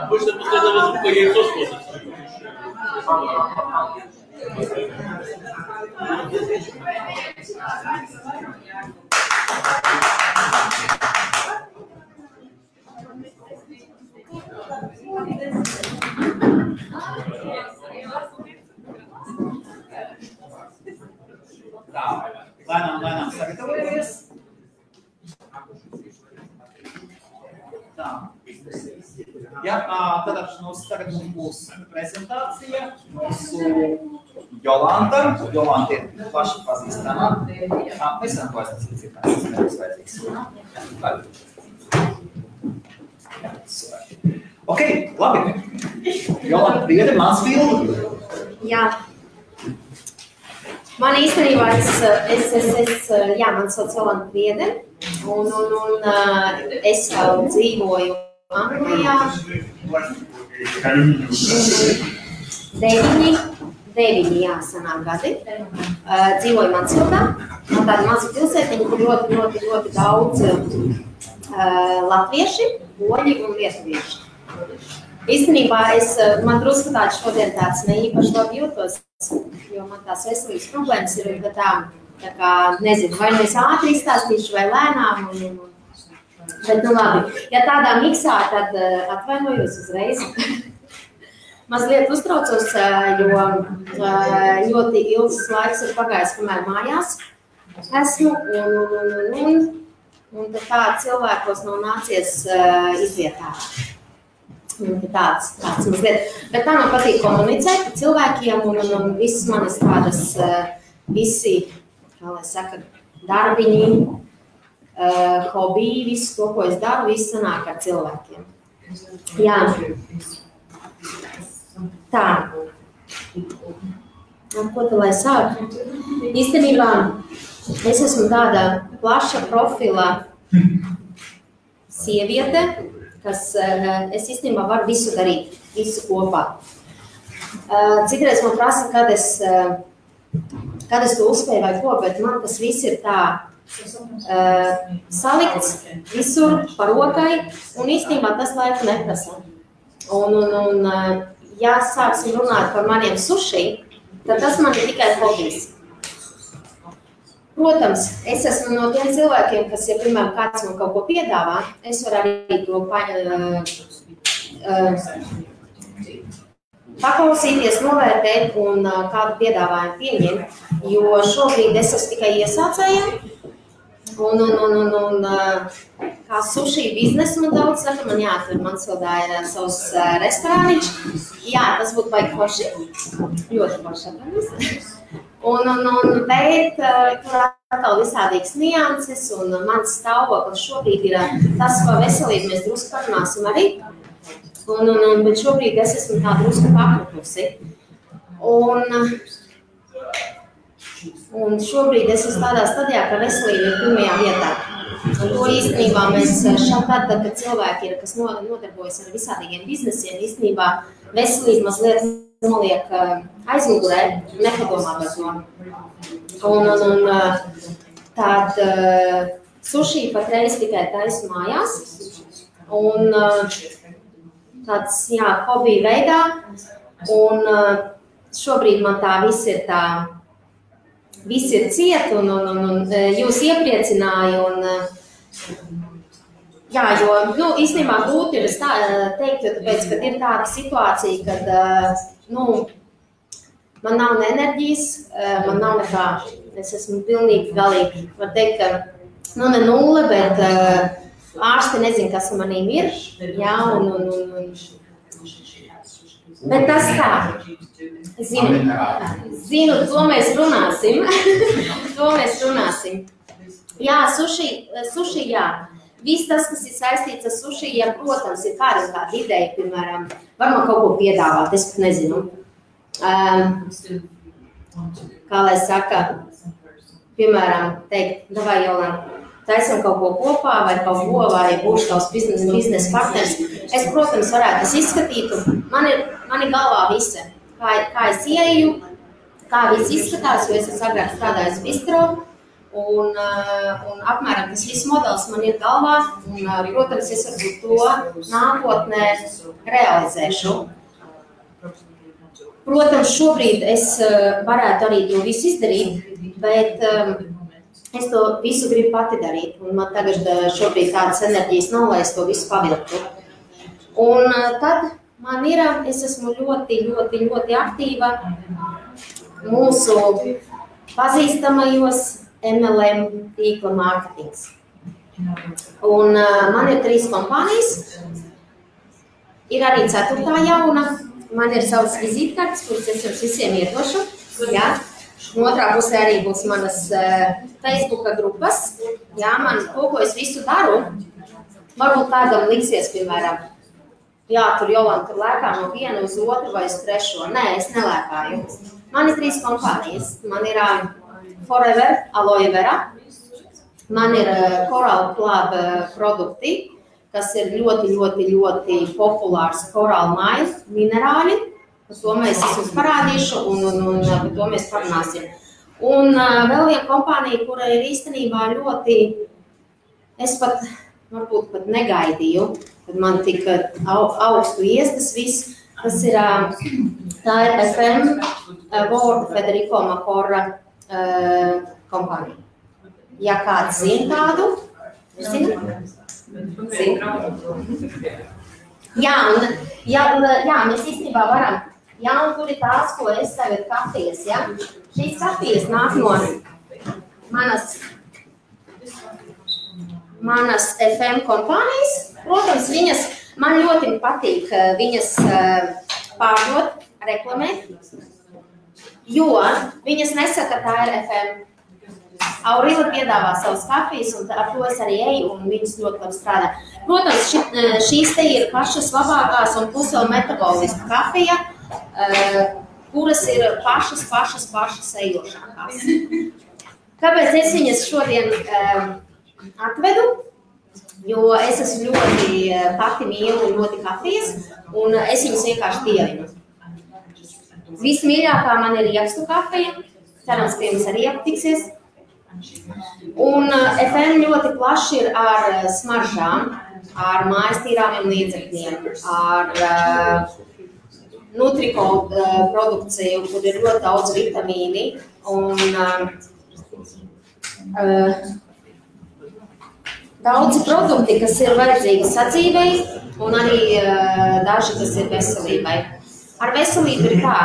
Обычно после этого звука яйцо сходится. Tā, lēnām sagatavojamies. Tā. Ja, tad tagad mums būs prezentācija. Mūsu Jolanta. Jolanta ir plaši pazīstama. Mēs varam klāsties, cik tas nebūs vajadzīgs. Ok, labi. Jolanta, priede, Mansfield. Jā. Man īstenībā man sauc Jolanta Priede, un es jau dzīvoju Anglijā. 9 sanāk gadi. Dzīvoju Mansfildā. Man tāda maza pilsētiņa, kur ļoti daudz latvieši, poļi un lietuvieši. Īstenībā man drusku šodien tāds neīpaši labi jūtos, jo man tās veselības problēmas ir tā kā, nezinu, vai es ātri izstāstīšu vai lēnām. Bet, nu labi, ja tādā miksā, tad atvainojos uzreiz. Mazliet uztraucos, jo ļoti ilgs laiks ir pagājis, kamēr mājās esmu, un tā cilvēkos nav nācies izvietā. Tāds mazliet. Bet tā man patīk komunicēt cilvēkiem, un visas manas tādas, visi, kā lai saka, darbiņi, hobiji, visu to, ko es daru, viss sanāk ar cilvēkiem. Jā. Tā. Ko tu lai sāk? Īstenībā es esmu tāda plaša profila sieviete, kas es īstenībā varu visu darīt, visu kopā. Citreiz man prasa, kad es to uzspēju vai ko, bet man tas viss ir tā salikts visur pa rokai, un īstenībā tas laiku neprasa. Un ja sāksim runāt par maniem suši, tad tas man ir tikai hobijs. Protams, es esmu no tiem cilvēkiem, kas, ja, piemēram, kāds man kaut ko piedāvā, es varu arī to paklausīties, novērtēt un kādu piedāvājumu pieņemt, jo šobrīd es esmu tikai iesācēja, un kā sushi biznesu man daudz saka, man jāatver Mansfildā ir savs restorāniņš. Jā, tas būtu baigi forši, ļoti forši. Bet tur atkal visādīgas nianses, un mans stāvoklis šobrīd ir tas, ko veselību mēs drusku parunāsim arī. Bet šobrīd es esmu tā drusku pakrutusi. Un šobrīd es esmu tādā stadijā, ka veselība ir pirmajā vietā. Un to īstenībā mēs tad, kad cilvēki ir, kas nodarbojas ar visādīgiem biznesiem, īstenībā veselība mazliet noliek aizmugurē, nepadomā par to. Tād sushi patreiz tikai taisu mājās, un tāds, jā, hobija veidā, un šobrīd man tā viss ir ciet, un jūs iepriecināja, jā, jo, īstenībā grūti ir teikt, jo tāpēc, kad ir tāda situācija, kad, man nav ne enerģijas, man nav nekā, es esmu pilnīgi galīgi, var teikt, ka, ne nulle, bet ārsti nezin, kas manīm ir, jā, bet tas tā, zinu, to mēs runāsim, Jā, suši, jā. Viss tas, kas ir saistīts ar suši, ja, protams, ir kāda ideja, piemēram, var man kaut ko piedāvāt, es pat nezinu. Kā lai saka, piemēram, teikt, davai, Jolanta, taisam kaut ko kopā, vai kaut ko, vai būšu tavs biznesa partners. Es, protams, varētu es izskatītu. Mani galvā visa, kā es ieju, kā viss izskatās, jo es esmu agrāk strādājis bistro. un apmēram tas viss modelis man ir galvā, un, protams, es varbūt to nākotnē realizēšu. Protams, šobrīd es varētu arī to visu izdarīt, bet es to visu gribu pati darīt, un man tagad šobrīd tādas enerģijas nav, lai es to visu pavilktu. Un tad man ir, es esmu ļoti aktīva mūsu pazīstamajos MLM tīkla mārketings. Un man ir 3 kompānijas, ir arī 4. jauna, man ir savas vizītkartes, kuras es jums visiem iedošu. Jā. Otrā pusē arī būs manas Facebooka grupas. Jā, man ko es visu daru, varbūt kādam liksies, piemēram, jā, tur Jolanta tur lēkā no viena uz otru vai uz trešo. Nē, es nelēkāju. Man ir 3 kompānijas. Man ir Forever Aloe Vera, man ir Coral Club produkti, kas ir ļoti populārs Coral Mile minerāļi. Par to mēs jums parādīšu un par to mēs parunāsim. Un vēl viena kompānija, kura ir īstenībā ļoti, es varbūt pat negaidīju, kad man tik augstu iestas viss, tas ir, tā ir FM World Federico Macora kompānija. Ja kāds zina tādu, zina? Jā, mēs īstenībā varam. Jā, un tur ir tās, ko es tagad kafijas, ja? Šīs kafijas nāk no manas FM kompānijas. Protams, man ļoti patīk viņas pārdot, reklamēt, jo viņas nesaka, tā ir FM. Aurila piedāvā savas kafijas, un ar to es arī eju, un viņas ļoti labi strādā. Protams, šīs te ir pašas labākās un plus vēl metabolistu kafija, kuras ir pašas ejošākās. Kāpēc es viņas šodien atvedu? Jo es esmu ļoti pati mīlu ļoti kafijas, un es viņas vienkārši dievinu. Vismīļākā man ir riekstu kafija, cerams, ka jums arī aptiksies. Un FM ļoti plaši ir ar smaržām, ar mājas tīrāmiem līdzekļiem, ar Nutriko produkciju, kur ir ļoti daudz vitamīni un daudzi produkti, kas ir vajadzīgi sadzīvei un arī daži, kas ir veselībai. Ar veselību ir tā.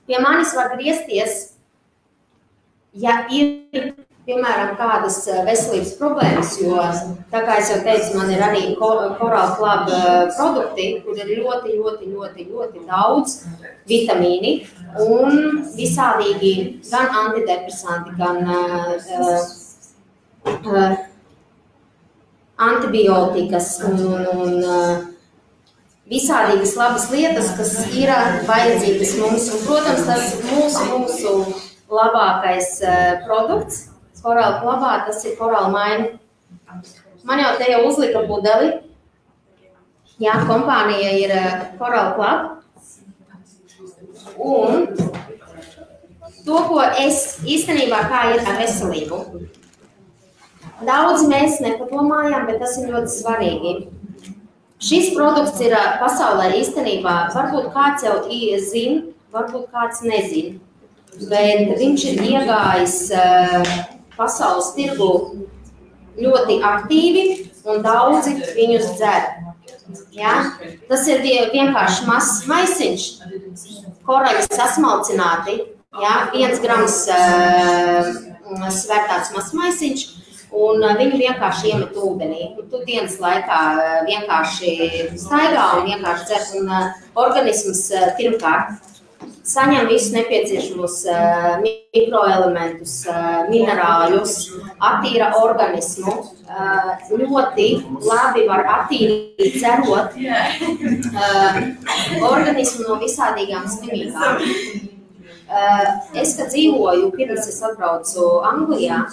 Pie manis var griezties, ja ir, piemēram, kādas veselības problēmas, jo, tā kā es jau teicu, man ir arī Coral Club produkti, kur ir ļoti daudz vitamīni un visādīgi gan antidepresanti, gan antibiotikas un visādīgas labas lietas, kas ir vajadzīgas mums. Un, protams, tas mūsu labākais produkts Coral Clubā, tas ir Coral Mine. Man jau te jau uzlika pudeli. Jā, kompānija ir Coral Club. Un to, ko es īstenībā kā ir ar veselību. Daudz mēs nepadomājam, bet tas ir ļoti svarīgi. Šis produkts ir pasaulē īstenībā, varbūt kāds jau zina, varbūt kāds nezina. Bet viņš ir iegājis pasaules tirgu ļoti aktīvi un daudzi viņus dzer. Ja? Tas ir vienkārši mazs maisiņš, koraļi sasmalcināti, ja? 1 grams svērtāts mazs maisiņš, un viņu vienkārši iemet ūdenī. Tu dienas laikā vienkārši staigā un vienkārši dzer, un organisms pirmkārt saņem visus nepieciešamos mikroelementus, minerāļus, attīra organismu, ļoti labi var attīrīt, cerot organismu no visādīgām slimībām. Es, kad dzīvoju, pirms es atbraucu Anglijā,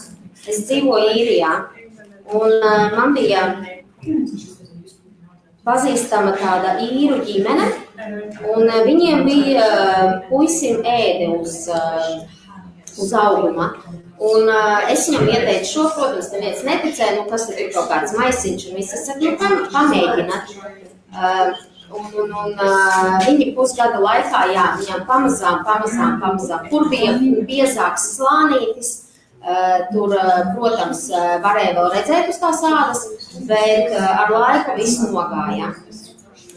es dzīvoju Īrijā, un man bija pazīstama tāda īru ģimene, un viņiem bija puisim ēde uz auguma. Un es viņam ieteicu šo, protams, neviens neticēja, nu kas ir kaut kāds maisiņš un viss. Es saku, nu pamēģināt. Un viņi pusgada laikā, jā, viņam pamazām. Kur bija biezāks slānītis, tur, protams, varēja vēl redzēt uz tās ādas, bet ar laiku viss nogāja.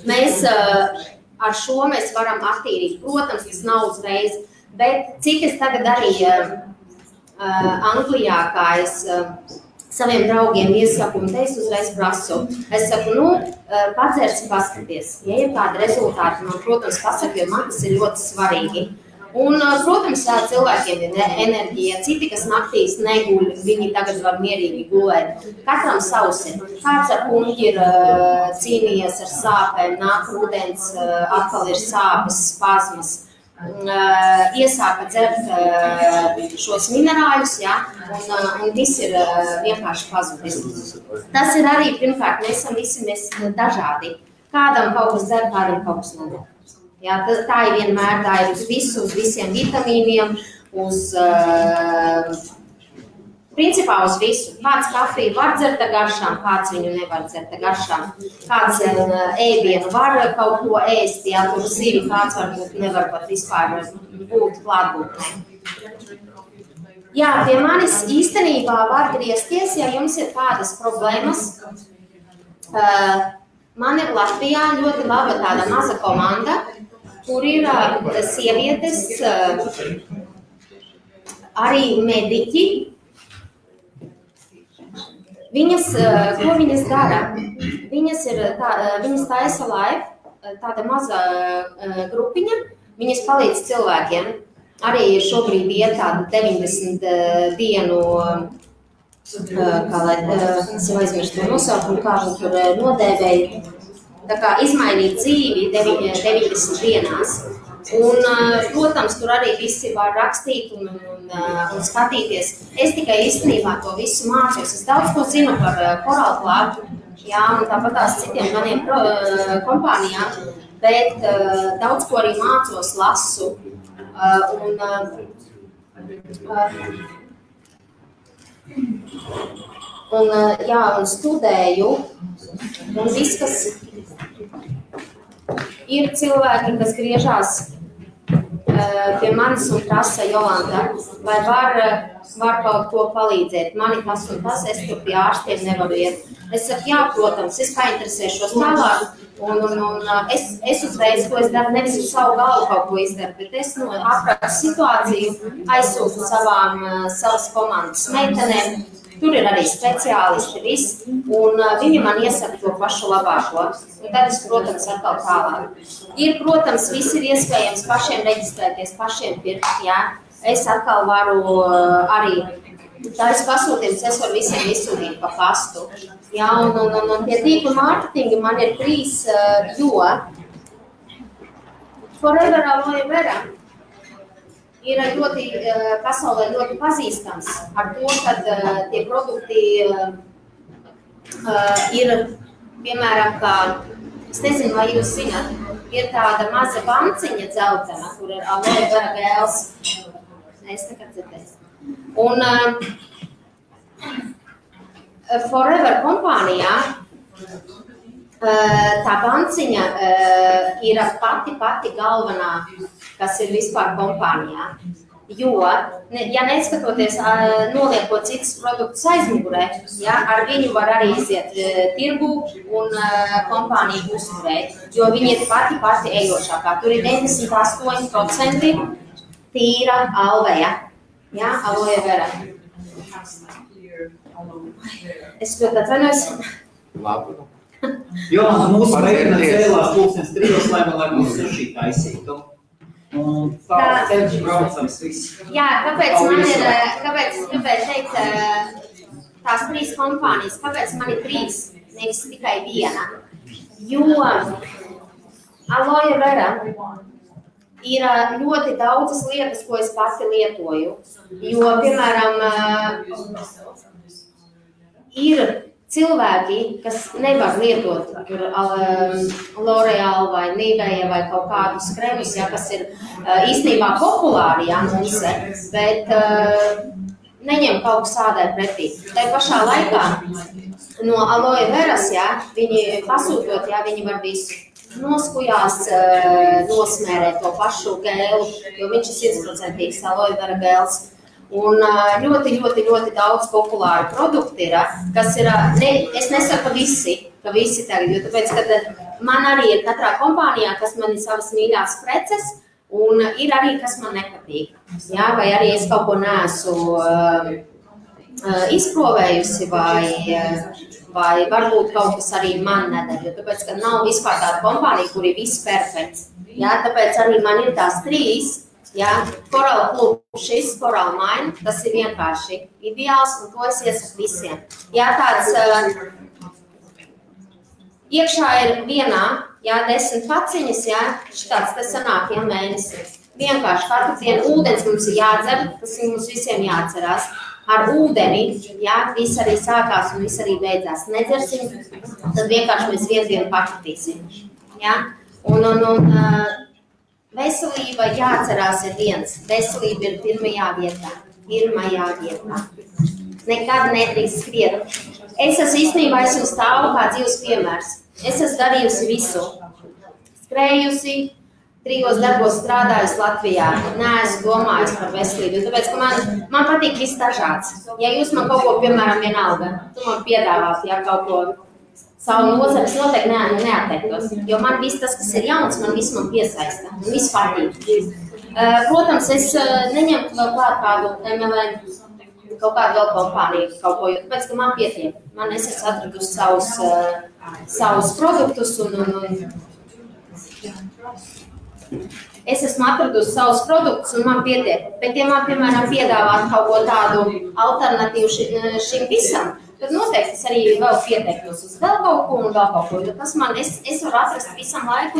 Mēs ar šo mēs varam attīrīt, protams, tas nav uzreiz, bet cik es tagad arī Anglijā, kā es saviem draugiem iesaku, un te es uzreiz prasu. Es saku, padzersi paskaties. Ja ir kādi rezultāti, man, protams, pasaka, jo man tas ir ļoti svarīgi. Un, protams, cilvēkiem ir enerģija. Citi, kas naktīs neguļ, viņi tagad var mierīgi gulēt. Katram savs ir. Kāds ar puņķi ir cīnījies ar sāpēm, nāk rudens, atkal ir sāpes, spazmas. Iesāka dzert šos minerāļus, ja, un viss ir vienkārši pazudis. Tas ir arī, pirmkārt, mēs esam dažādi. Kādam kaut kas der, kādam kaut kas neder. Ja, tā ir vienmēr, tā ir uz visiem vitamīniem, principā uz visu. Kāds kafiju var dzert ar garšām, kāds viņu nevar dzert ar garšām. Kāds ēdienu var kaut ko ēst, ja tur zivi, kāds varbūt nevar pat vispār būt klātbūtnē. Jā, pie manis īstenībā var griezties, ja jums ir kādas problēmas. Man ir Latvijā ļoti laba tāda maza komanda, kur ir sievietes, arī mediķi. Ko viņas dara? Viņas taisa live, tāda maza grupiņa, viņas palīdz cilvēkiem. Arī šobrīd iet tāda 90 dienu, es jau aizmirstu to nosaukumu, kā viņi tur nodēvēja, tā kā izmainīt dzīvi 90 dienās. Un, protams, tur arī visi var rakstīt un skatīties. Es tikai īstenībā to visu mācos. Es daudz ko zinu par Coral Club, jā, un tāpat tās citiem maniem kompānijām, bet daudz ko arī mācos, lasu. Un studēju. Un viss, kas ir cilvēki, kas griežās pie manis un prasa, Jolanta, vai var kaut ko palīdzēt. Mani tas un tas, es tur pie ārstiem nevaru iet. Es saku, jā, protams, es painteresēšos tālāk. Un es uzreiz, ko es daru, nevis uz savu galvu kaut ko izdaru, bet es aprakstu situāciju, aizsūtu savas komandas meitenēm. Tur ir arī speciālisti, viss, un viņi man iesaka to pašu labāko. Un tad es, protams, atkal tālāk. Protams, viss ir iespējams pašiem reģistrēties, pašiem pirkt, jā. Es atkal varu arī, tā es pasūtījums, es varu visiem izsūtīt pa pastu. Jā, un pie tīkla mārketinga man ir 3, jo Forever Aloe Vera ir pasaulē ļoti pazīstams ar to, ka tie produkti ir, piemēram, kā, es nezinu, vai jūs zināt, ir tāda maza banciņa dzeltena, kur ir aloe vera gēls. Es nekad dzirdēju. Un Forever kompānijā tā banciņa ir pati galvenā, kas ir vispār kompānijā. Jo, ja neskatoties, noliekot citas produktus aizmugurē, ja, ar viņu var arī iziet tirgu un kompāniju uzturēt, jo viņi ir pati ejošākā. Tur ir 98% tīra alveja, ja, aloe vera. Es ļoti atvainojos. Labi. Jo, mūsu meitene cēlās 3:00, lai mums suši taisītu. Un tā ceļš braucams viss. Jā, kāpēc es gribēju teikt tās 3 kompānijas, kāpēc man ir 3, nevis tikai 1? Jo aloe vera ir ļoti daudzas lietas, ko es pati lietoju. Jo, piemēram, ir cilvēki, kas nevar lietot L'Oreal vai Nivea vai kaut kādus kremus, ja, kas ir īstenībā populāri, ja, mums, bet neņem kaut kas ādai pretī. Tai pašā laikā no aloe veras, viņi pasūtot, viņi var visu. Noskujās, nosmērē to pašu gēlu, jo viņš ir 100% aloe vera gēls. Un ļoti daudz populāru produktu ir, kas ir, es nesaku ka visi tagad, jo tāpēc, ka man arī ir katrā kompānijā, kas man ir savas mīļās preces, un ir arī, kas man nepatīk. Vai arī es kaut ko neesmu izprovējusi, vai varbūt kaut kas arī man nedara, jo tāpēc, ka nav vispār tāda kompānija, kur ir viss perfekts. Tāpēc arī man ir tās 3. Coral Club, šis Coral Mine, tas ir vienkārši ideāls, un to es iesaku visiem. Tāds iekšā ir vienā, 10 paciņas, šitāds te sanāk, mēnesi. Vienkārši katru dienu ūdens mums ir jādzer, tas mums visiem jāatcerās. Ar ūdeni, viss arī sākās un viss arī beidzās. Nedzersim, tad vienkārši mēs vienu dienu pakritīsim. Un veselība jāatcerās ir viens. Veselība ir pirmajā vietā. Nekad nedrīkst skriet. Es īstenībā esmu stāvu kā dzīves piemērs. Es esmu darījusi visu. Skrējusi, 3 darbos strādājusi Latvijā. Neesmu domājusi par veselību, tāpēc, ka man patīk viss dažāds. Ja jūs man kaut ko, piemēram, vienalga, tu man piedāvāt, kaut ko savu nozari, es noteikti neatteiktos, jo man viss tas, kas ir jauns, man piesaista, man viss patīk. Protams, es neņemtu vēl klāt kādu MLM, kaut kādu vēl kompāniju, kaut ko, tāpēc, ka man pietiek. Es esmu atradusi savus produktus un man pietiek. Bet, ja man, piemēram, piedāvāt kaut ko tādu alternatīvu šim visam, tad noteikti es arī vēl pieteiktos uz vēl kaut ko un vēl kaut ko, jo tas es varu atrast visam laiku,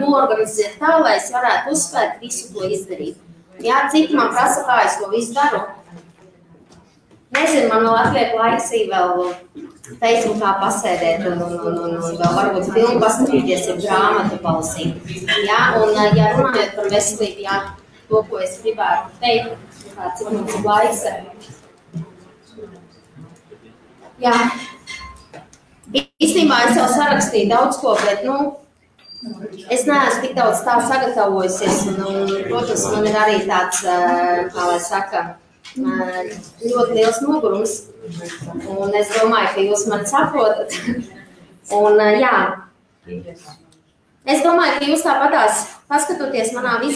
noorganizēt tā, lai es varētu uzspēt visu to izdarīt. Citi man prasa, kā es to visu daru. Nezinu, man vēl atliek laiks vēl Facebookā pasēdēt un vēl varbūt filmu paskatīties, grāmatu palasīt. Un, ja runājot par veselību, to, ko es gribētu teikt, cik mums ir laiks. Īstenībā es jau sarakstīju daudz ko, bet, es neesmu tik daudz tā sagatavojusies, un, protams, man ir arī tāds, kā lai saka, ļoti liels nogurums, un es domāju, ka jūs mani saprotat, un, es domāju, ka jūs tāpatās paskatoties manā visā,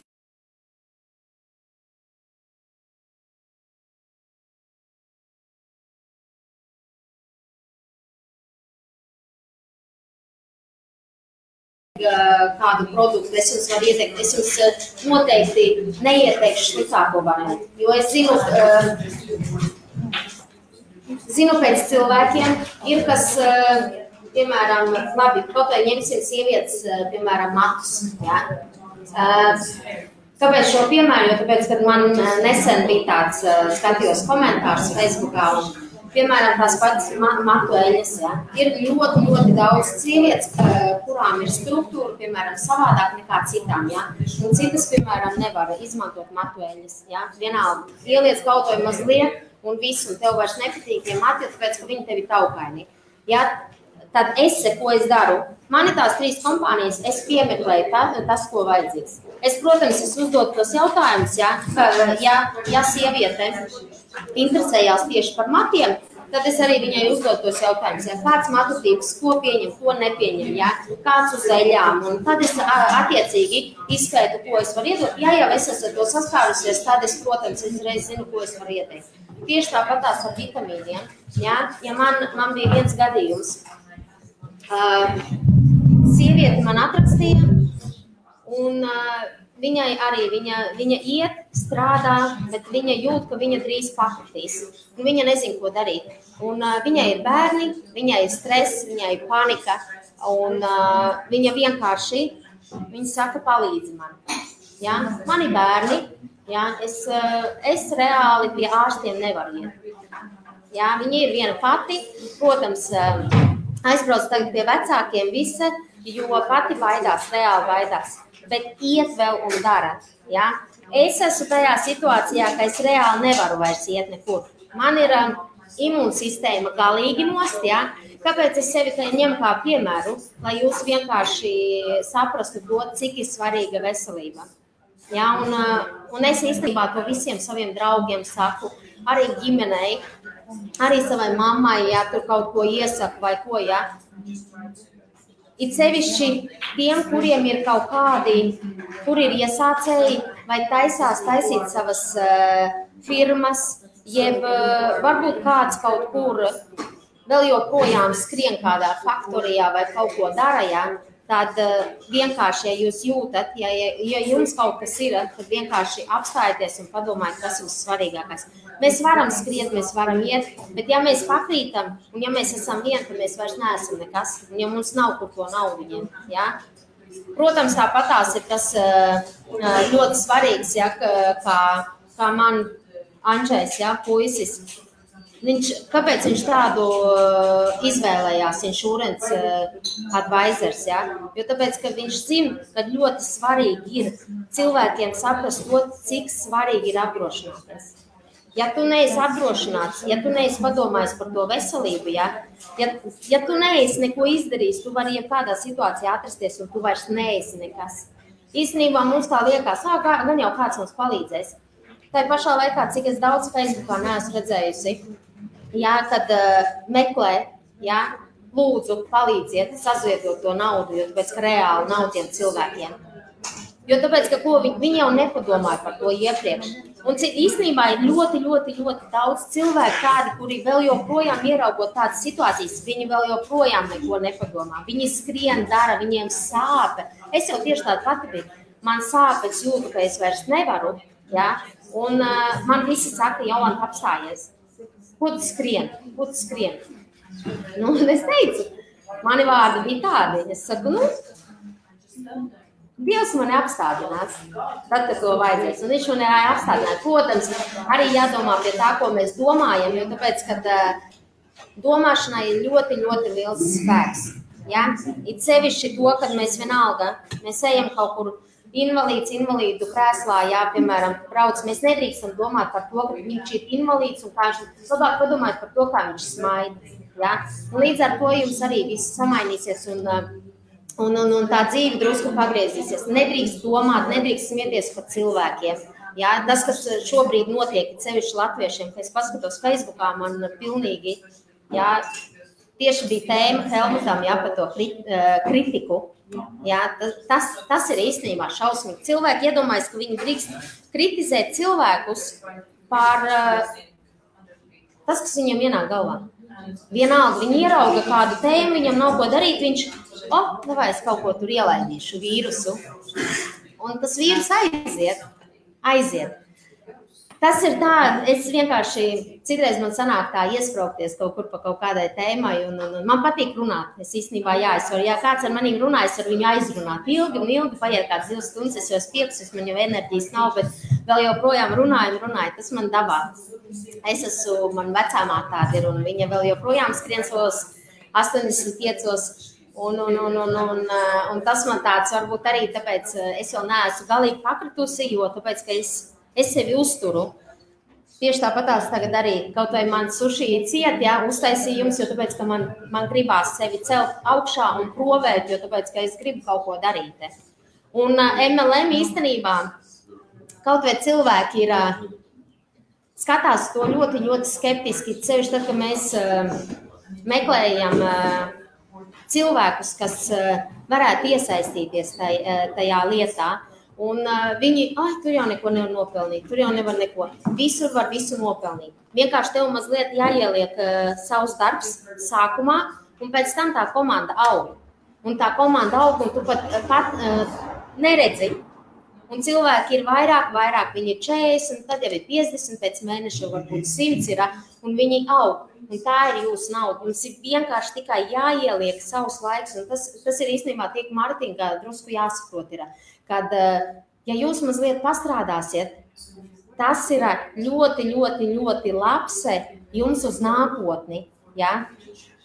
kādu produktu es jums varu ieteikt. Es jums noteikti neieteikšu sliktāko variantu, jo es zinu pēc cilvēkiem, ir kas, piemēram, labi, kaut vai ņemsim sievietes, piemēram, matus, Kāpēc šo piemēru? Jo tāpēc, kad man nesen bija tāds, skatījos komentārus Facebookā, un piemēram, tās pats matu eļas, ir ļoti daudz sievietes, kurām ir struktūra, piemēram, savādāk nekā citām, un citas, piemēram, nevar izmantot matu eļas, vienalga, ieliec kaut vai mazliet, un viss, un tev vairs nepatīk tie mati, tāpēc, ka viņi tevi taukaini, Tad ko es daru? Man ir tās 3 kompānijas, es piemeklēju tas, ko vajadzīgs. Es, protams, uzdodu tos jautājumus, ja sieviete interesējās tieši par matiem, tad es arī viņai uzdodu tos jautājumus, kāds matu tips, ko pieņem, ko nepieņem, kāds uz eļām, un tad es attiecīgi izskaitu, ko es varu iedot. Ja jau es esmu to saskārusies, tad es, protams, reiz zinu, ko es varu ieteikt. Tieši tāpatās ar vitamīniem, ja man bija viens gadījums, sieviete man atrakstīja, un viņai arī, viņa iet, strādā, bet viņa jūt, ka viņa drīz pakritīs, un viņa nezin, ko darīt. Un viņai ir bērni, viņai ir stress, viņai ir panika, un viņa vienkārši, viņa saka, palīdzi man. Man ir bērni, es reāli pie ārstiem nevaru iet. Viņa ir viena pati, protams, aizbrauc tagad pie vecākiem jo pati baidās, reāli baidās, bet iet vēl un dara. Es esmu tajā situācijā, ka es reāli nevaru vairs iet nekur. Man ir imūnsistēma galīgi nost, ja? Kāpēc es sevi ņemu kā piemēru, lai jūs vienkārši saprastu to, cik ir svarīga veselība. Ja? Un es īstenībā to visiem saviem draugiem saku, arī ģimenei, arī savai mammai, ja tur kaut ko iesaku vai ko, ja. It sevišķi tiem, kuriem ir kaut kādi, kur ir iesācēji vai taisās taisīt savas firmas, jeb varbūt kāds kaut kur vēl joprojām skrien kādā faktorijā vai kaut ko dara, ja, tad vienkārši, ja jūs jūtat, ja jums kaut kas ir, tad vienkārši apstājieties un padomājiet, kas ir svarīgākais. Mēs varam skriet, mēs varam iet, bet ja mēs pakrītam un ja mēs esam vieni, tad mēs vairs neesam nekas, un ja mums nav kur to naudu ņemt, ja. Protams, tāpatās ir tas ļoti svarīgs, ja, kā man Andžejs, ja, puisis. Kāpēc viņš tādu izvēlējās, insurance advisors, ja? Jo tāpēc, ka viņš zina, ka ļoti svarīgi ir cilvēkiem saprast to, cik svarīgi ir apdrošināties. Ja tu neesi apdrošināts, ja tu neesi padomājis par to veselību, ja tu neesi neko izdarījis, tu vari jebkādā situācijā atrasties un tu vairs neesi nekas. Īstenībā mums tā liekas, gan jau kāds mums palīdzēs. Tā pašā laikā, cik es daudz Facebookā neesmu redzējusi, ja, kad meklē, ja, lūdzu, palīdziet, sazietot to naudu, jo tāpēc, ka reāli nav tiem cilvēkiem. Jo tāpēc, ka viņi jau nepadomāja par to iepriekš. Un īstenībā ir ļoti, ļoti, ļoti daudz cilvēku tādi, kuri vēl joprojām ieraugot tādas situācijas, viņi vēl joprojām neko nepadomā. Viņi skrien, dara, viņiem sāpe. Es jau tieši tāda pati biju. Man sāp, es jūtu, ka es vairs nevaru, ja, un man visi saka, Jolanta, apstājies. Ko tu skrien? Nu, un es teicu, mani vārdi bija tādi. Es saku, Dievs mani apstādinās, tad, kad to vajadzēs. Un viņš mani apstādinās. Protams, arī jādomā pie tā, ko mēs domājam, jo tāpēc, kad domāšanai ir ļoti, ļoti liels spēks. Ja? It sevišķi to, kad mēs vienalga, mēs ejam kaut kur invalīdu krēslā, jā, piemēram, brauc, mēs nedrīkstam domāt par to, ka viņš ir invalīds un kā viņš labāk padomāt par to, kā viņš smaida. Ja? Un līdz ar to jums arī viss samainīsies un tā dzīve drusku pagriezīsies. Nedrīkst domāt, nedrīkst smieties par cilvēkiem. Ja? Tas, kas šobrīd notiek, sevišķi latviešiem, kad es paskatos Facebookā, man pilnīgi, ja, tieši bija tēma Helmutam, ja, par to kritiku. Jā, tas ir īstenībā šausmīgi. Cilvēki iedomājas, ka viņi drīkst kritizēt cilvēkus par tas, kas viņam ienāk galvā. Vienalga, viņi ierauga kādu tēmu, viņam nav ko darīt, viņš, davai es kaut ko tur ielaidīšu vīrusu. Un tas vīrus aiziet. Tas ir tā, es vienkārši, citreiz man sanāk tā iespraukties kaut kur pa kaut kādai tēmai, un man patīk runāt. Es īstenībā, ja kāds ar maniem runā, es ar viņu aizrunāt. Ilgi paiet kāds 2 stundas, es jau pieksis, man jau enerģijas nav, bet vēl joprojām runāju, tas man dabā. Man vecāmā tāda ir, un viņa vēl joprojām skrien savos 85, un tas man tāds varbūt arī tāpēc, es vēl neesmu galīgi pakritusi, jo tāpēc, ka es sevi uzturu. Tieši tāpatās tagad arī kaut vai man suši ciet, ja, uztaisījums, jo tāpēc, ka man gribās sevi celt augšā un provēt, jo tāpēc, ka es gribu kaut ko darīt. Un MLM īstenībā kaut vai cilvēki ir skatās to ļoti, ļoti skeptiski, sevišķi tad, ka mēs meklējam cilvēkus, kas varētu iesaistīties tajā lietā. Un viņi, tur jau neko nevar nopelnīt, tur jau nevar neko. Visur var visu nopelnīt. Vienkārši tev mazliet jāieliek savs darbs sākumā, un pēc tam tā komanda aug. Un tā komanda aug, un tu pat neredzi. Un cilvēki ir vairāk, viņi ir 40, tad jau ir 50, pēc mēneša varbūt 100 ir, un viņi aug. Un tā ir jūsu nauda. Jums ir vienkārši tikai jāieliek savs laiks, un tas ir īstenībā tiek Martinga drusku jāsaprot ir. Kad, ja jūs mazliet pastrādāsiet, tas ir ļoti, ļoti, ļoti labs jums uz nākotni. Ja?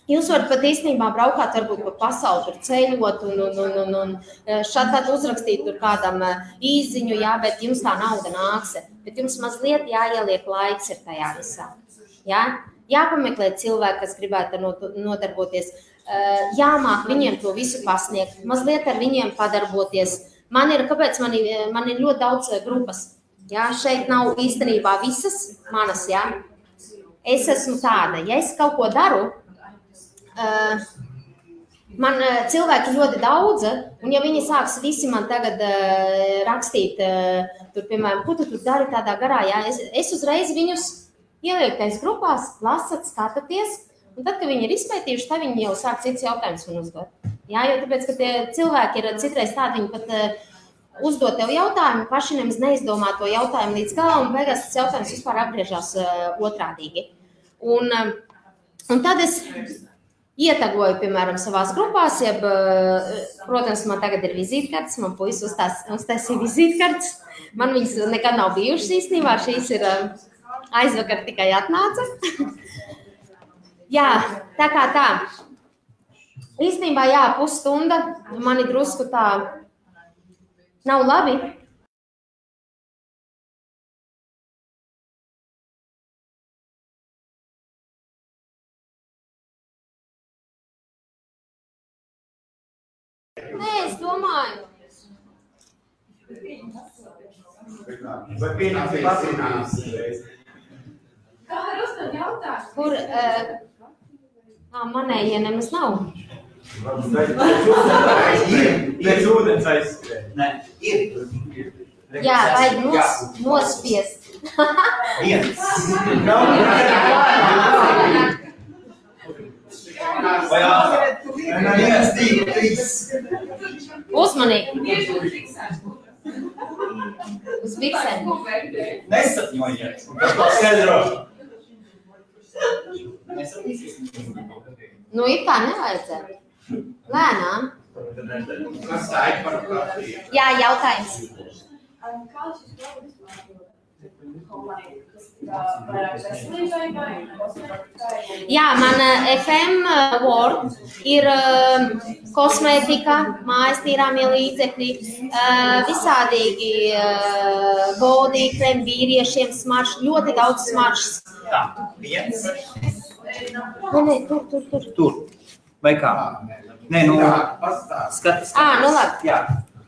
Jūs varat pat īstenībā braukāt, varbūt pa pasauli tur ceļot un šādi uzrakstīt tur kādam īziņu, jā, bet jums tā nauda nāks. Bet jums mazliet jāieliek laiks ir tajā visā. Jā? Jāpameklē cilvēki, kas gribētu nodarboties. Jāmāk viņiem to visu pasniegt, mazliet ar viņiem padarboties. Kāpēc man ir ļoti daudz grupas? Jā, šeit nav īstenībā visas manas, jā. Es esmu tāda, ja es kaut ko daru, man cilvēki ļoti daudz, un ja viņi sāks visi man tagad rakstīt, tur, piemēram, ko tu tur dari tādā garā, jā, es uzreiz viņus ielieku tais grupās, lasat, skatāties, un tad, kad viņi ir izpētījuši, tad viņi jau sāk cits jautājums man uzdot. Jā, jo tāpēc, ka tie cilvēki ir citreiz tādi, viņi pat uzdot tev jautājumu, paši nemaz neizdomā to jautājumu līdz galam, un beigās tas jautājums vispār apgriežās otrādīgi. Un tad es ietagoju, piemēram, savās grupās, protams, man tagad ir vizītkartes, man puisis uztaisīja vizītkartes. Man viņas nekad nav bijušas īstenībā, šīs ir aizvakar tikai atnāca. Jā, tā kā tā. Īstenībā, jā, pusstunda, mani drusku tā nav labi. Nē, es domāju. Vai pieņemsim pacinās? Kā var uzdot jautājumu? Kur manējie nemaz nav. Pēc ūdens aizskrēja. Nē, ir. Jā, vajag nospiest. Viens. Vai ātrāk? Viens, divi, trīs. Uzmanīgi. Uz Uz biksēm. Nesatņojiet. Tas paskaidro. Nu, ir tā nevajadzētu. Lēnām. Kas tā ir par kafiju? Jā, jautājums. Kā šis produkts vairāk veselībai vai kosmētikai? Jā, man FM Word ir kosmētika, mājas tīrāmie līdzekļi, visādīgi body krem vīriešiem smarš, ļoti daudz smaršas. Tā, viens. Nē, tur. Tur. Vai kā? Nē, nu, skaties. Nu labi. Jā.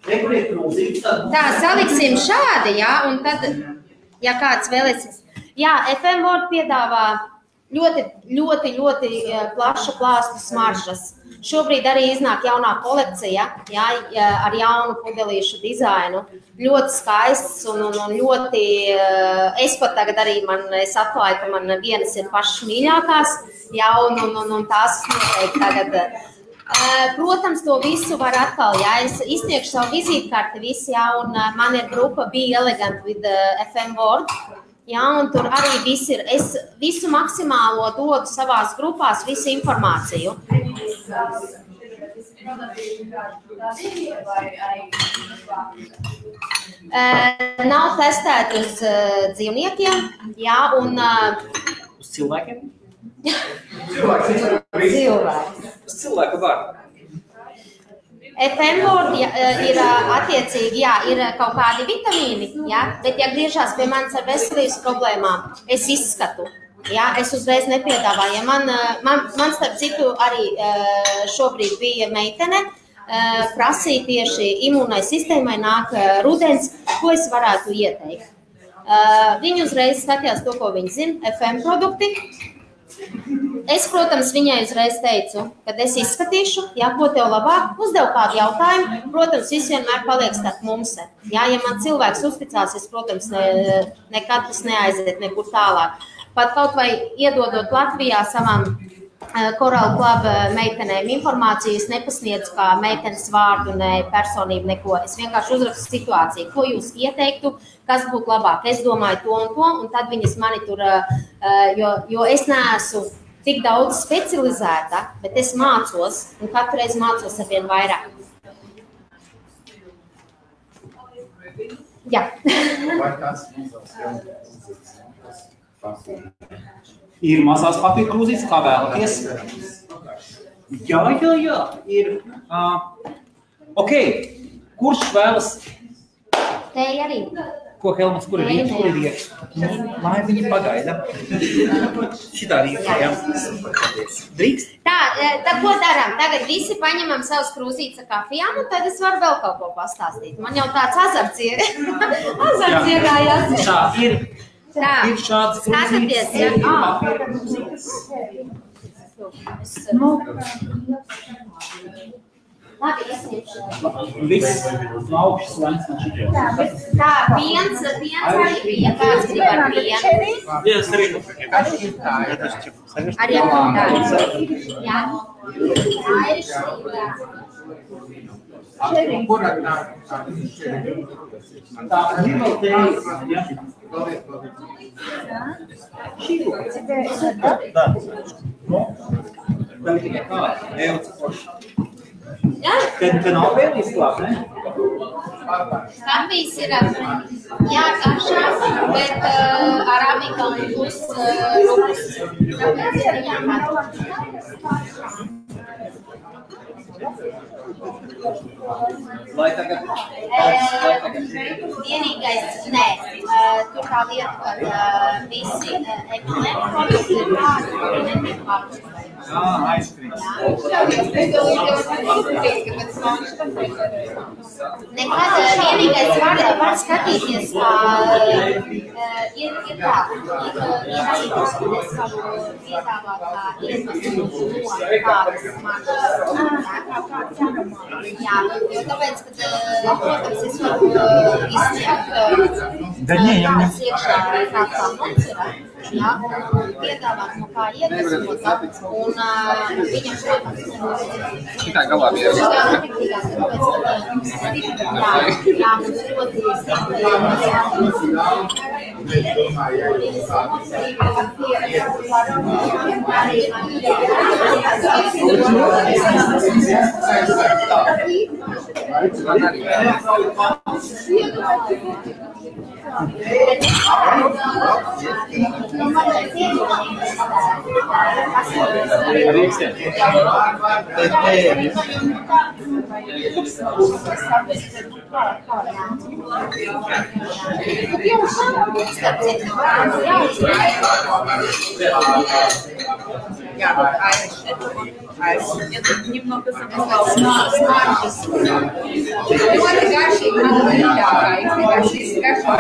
Rekur ir krūzīgs, tad... Tā, saliksim šādi, jā, un tad, ja kāds vēlēsies. Jā, FM Word piedāvā ļoti plaša plāstu smaržas. Šobrīd arī iznāk jaunā kolekcija, jā, ar jaunu pudelīšu dizainu. Ļoti skaists un ļoti, es pat tagad arī es atklāju, ka man vienas ir pašas mīļākās, jā, un tās noteikti tagad. Protams, to visu var atkal, jā, es izsniegšu savu vizītkarti visi, jā, un man ir grupa Be Elegant with FM Word, jā, un tur arī viss ir, es visu maksimālo dodu savās grupās, visu informāciju. Nav testēti uz dzīvniekiem, jā, un... Uz cilvēkiem? Cilvēki. Uz cilvēku var. FM Word ir attiecīgi, jā, ir kaut kādi vitamīni, jā, bet ja griežās pie manis ar veselības problēmām, es izskatu, jā, es uzreiz nepiedāvāju. Man starp citu arī šobrīd bija meitene, prasīja tieši imūnai sistēmai nāk rudens, ko es varētu ieteikt. Viņi uzreiz skatījās to, ko viņi zina, FM produkti. Es, protams, viņai uzreiz teicu, kad es izskatīšu, jā, ko tev labāk, uzdevu kādu jautājumu, protams, viss vienmēr paliek starp mums. Jā, ja man cilvēks uzticās, es, protams, nekad tas neaiziet nekur tālāk. Pat kaut vai iedodot Latvijā savām Coral Club meitenēm informāciju, es nepasniedzu kā meitenes vārdu, ne personību, neko. Es vienkārši uzrakstu situāciju, ko jūs ieteiktu, kas būtu labāk. Es domāju to, un tad viņas mani tur, jo es neesmu tik daudz specializēta, bet es mācos, un katru reizi mācos ar vien vairāk. Jā. Vai kāds mazās jaunās Ir mazās papīra krūzītes, kā vēlaties. Jā, ir. Ok, kurš vēlas? Teja arī. Ko, Helmuts, kur ir rieks? Kur ir rieks? Lai viņi pagaida. Šitā rieks, jā. Drīkst? Tā ko darām? Tagad visi paņemam savus krūzītes ar kafijām, un tad es varu vēl kaut ko pastāstīt. Man jau tāds azarts iegājās. Tā, ir šāds krūzītes. Labi, es ņemšu. Viss no augšas lēns no šitiem. Tā, piens arī bija. Kāds grib ar pienu? Jā, es arī. Arī ar kontādu. Jā. Tā ir Tā, ir vēl tejas, jā. Tā ir tikai kā, ejot poši. Te nav vēl izklāt, ne? Kafijas ir jākašās, bet arabika būs rupus. Tāpēc ir jākašās. Lai tagad. Vienīgais, nē, tur tā lieta, kad visi ekonomikos ir tādi, kuri netiek pārspēj. Aizskrīt. Nekad vienīgais var skatīties, ir tā, es varu piedāvāt kā iedvesmu no kādas manas. Jā, jo tāpēc, ka, protams, es varu izsniegt kādas iekšā kā mums ir, jā, piedāvāt no kā iedvesmot, un viņam, protams, Šitā galā bija. Jā, mums ļoti Это немного смаржес. Это гарши, надо мягкая. Если гарши,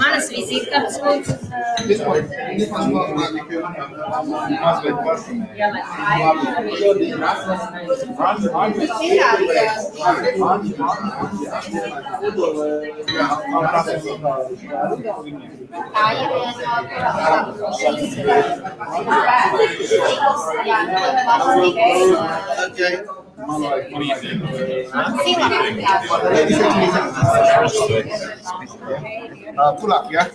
Manas vizītkartes lūdzu. Tā ir Tulak, ja?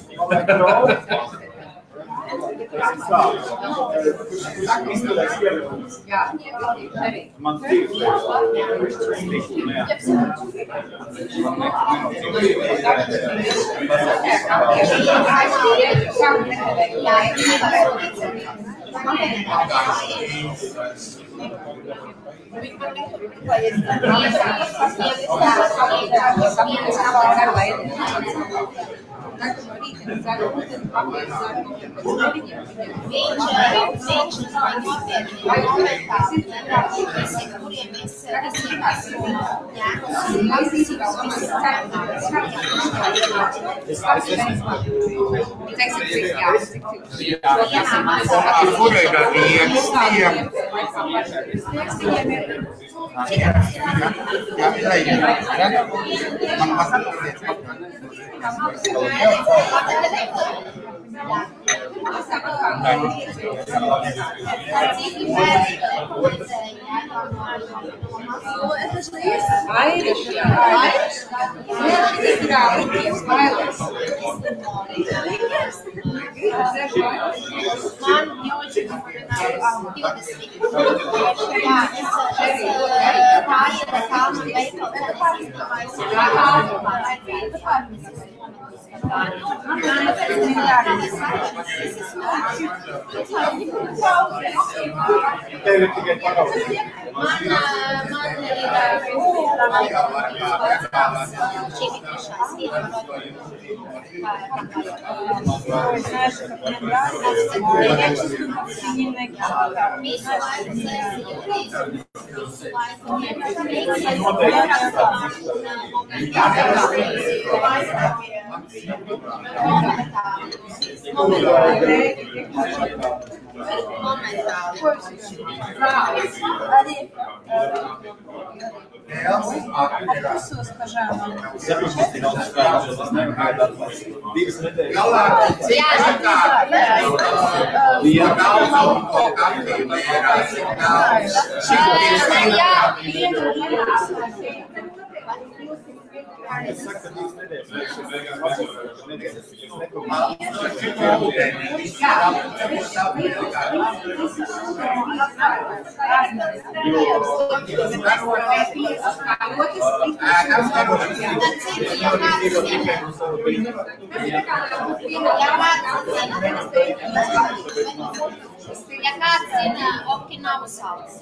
Ja kāds zina Okinavu salas?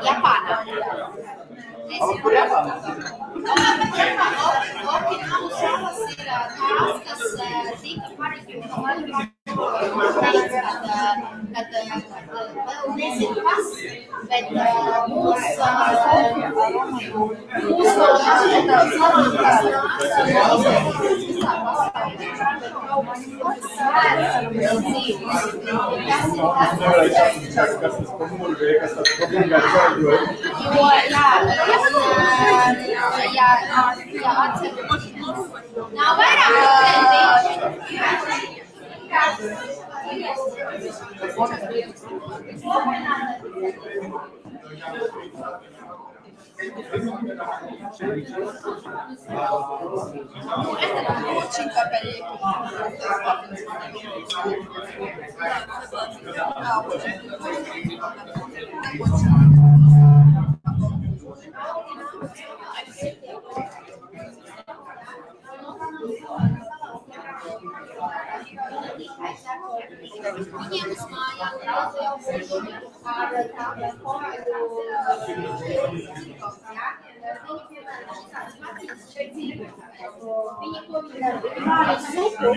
Japānā. Okinavu salas ir tās, kas tika pareģotas, kad vēl nezinu kas, bet mūsu nav vairāk Viņiem uz mājām daudz jau ar tādiem porāļu viņi ko dara supu,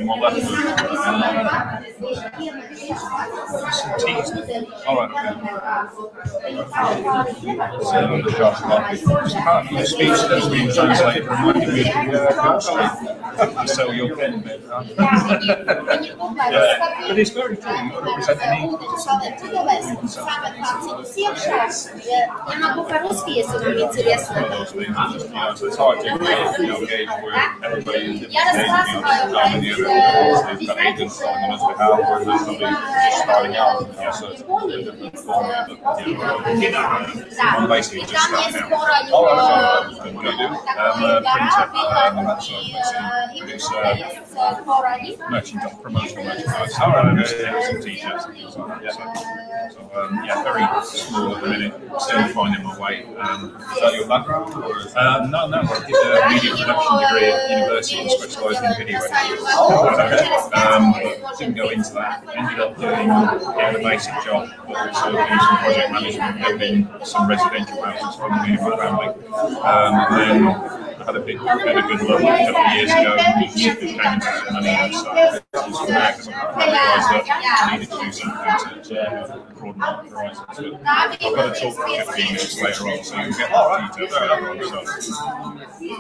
the speech that's being translated reminded me of the coastline. So you'll get it. But it's very true. You've got to present the need. So it's hard to engage where everybody is engaging the agents on the behalf where there's somebody just starting out. So I'm basically just starting out. What do you do? I'm a printer and that sort of thing. It's promotional merchandise. Some t-shirts and things like that. So very small at the minute. Still finding my way. Is that your background? Or no. I did a media production degree at university and specialised in video editing. but didn't go into that. Ended up doing a basic job, but also doing some project management, building some residential houses for me and my family. And then I had a good look a couple of years ago, and it came into some money and stuff. From there, because I realised that I needed to do something to broaden my horizons. But I've got to talk for 15 minutes later on, so you can get more details out of it. So,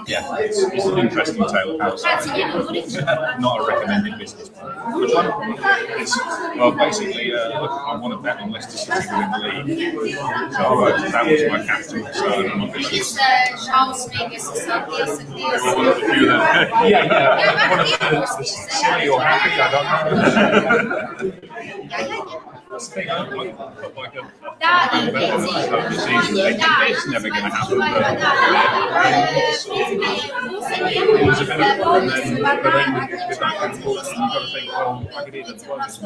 yeah, it's an interesting tale of how it's not a recommended business plan. Which one? Well, basically, look, I want to bet on Leicester City to win the league. So that was my capital. So I'm not going to. One of the silly or happy, I don't know. That's the thing, I put like a it's never going to happen. It was a bit of fun, but then with that unfortunately, you've got to think, well, I could either plug this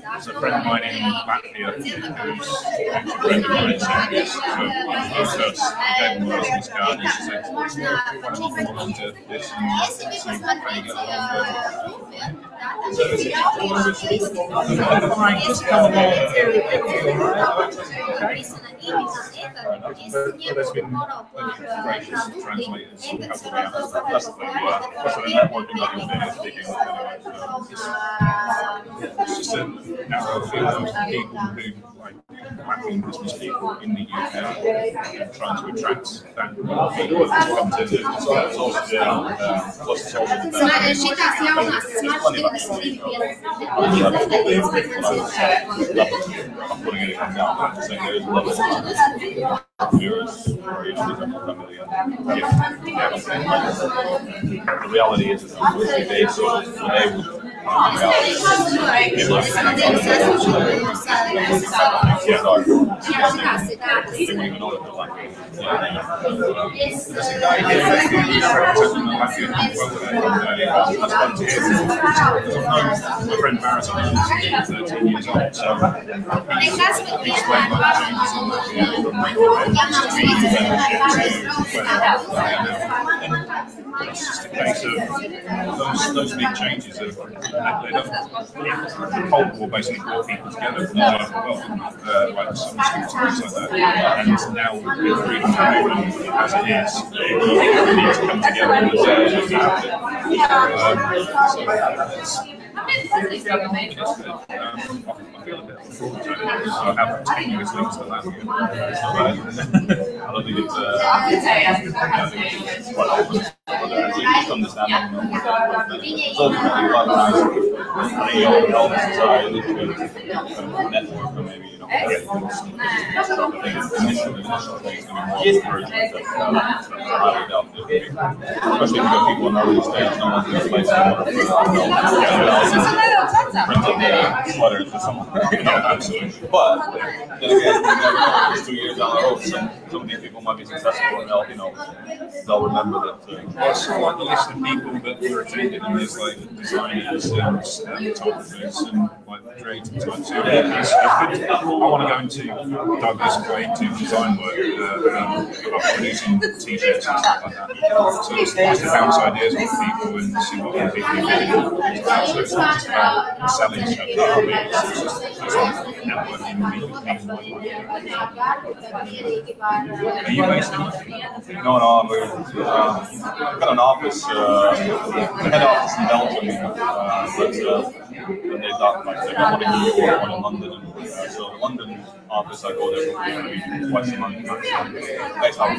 there's a friend of mine in Latvia who's a friend of mine, so gave him a business card and she said, why don't you come on to this and see how you get along. So fine, just come along. But there's been plenty of gracious translators who help me out. That's the thing, also the networking that you're doing is big enough anyway. It's just a narrow field of people who like mapping business people in the UK and trying to attract that people to come to the plus it's also I'm putting anything down, but I'm saying there's levels viewers or the reality is they so my friend Maris, I'm 13 years old, so he explained my changes it's just a case of those big changes of the Cold War basically brought people together from all over the world, like some schools and things like that. And now with freedom movement as it is, we need to come together and I feel a bit unfortunate. I have continuous links to that. I don't think it's quite often. Just understanding ultimately I think your element society to network or maybe get initial things to be more encouragement highly doubt especially if you've got people on early stage, no one's going to place print up the sweaters for someone. Absolutely. But then again, it's 2 years down the road, some of these people might be successful and they'll remember that. It's sort of like the list of people that were attended, and there's like designers and photographers and like creative types. So it's good. I want to go into diversify into design work, producing t-shirts and stuff like that. So it's nice to bounce ideas with people and see what other people are doing. So it's not just about selling stuff. It's networking and meeting people. Are you based in? No, we've got an office, the head office in Belgium, but they've got one in New York, one in London. So the London office, I go there maybe twice a month. Based on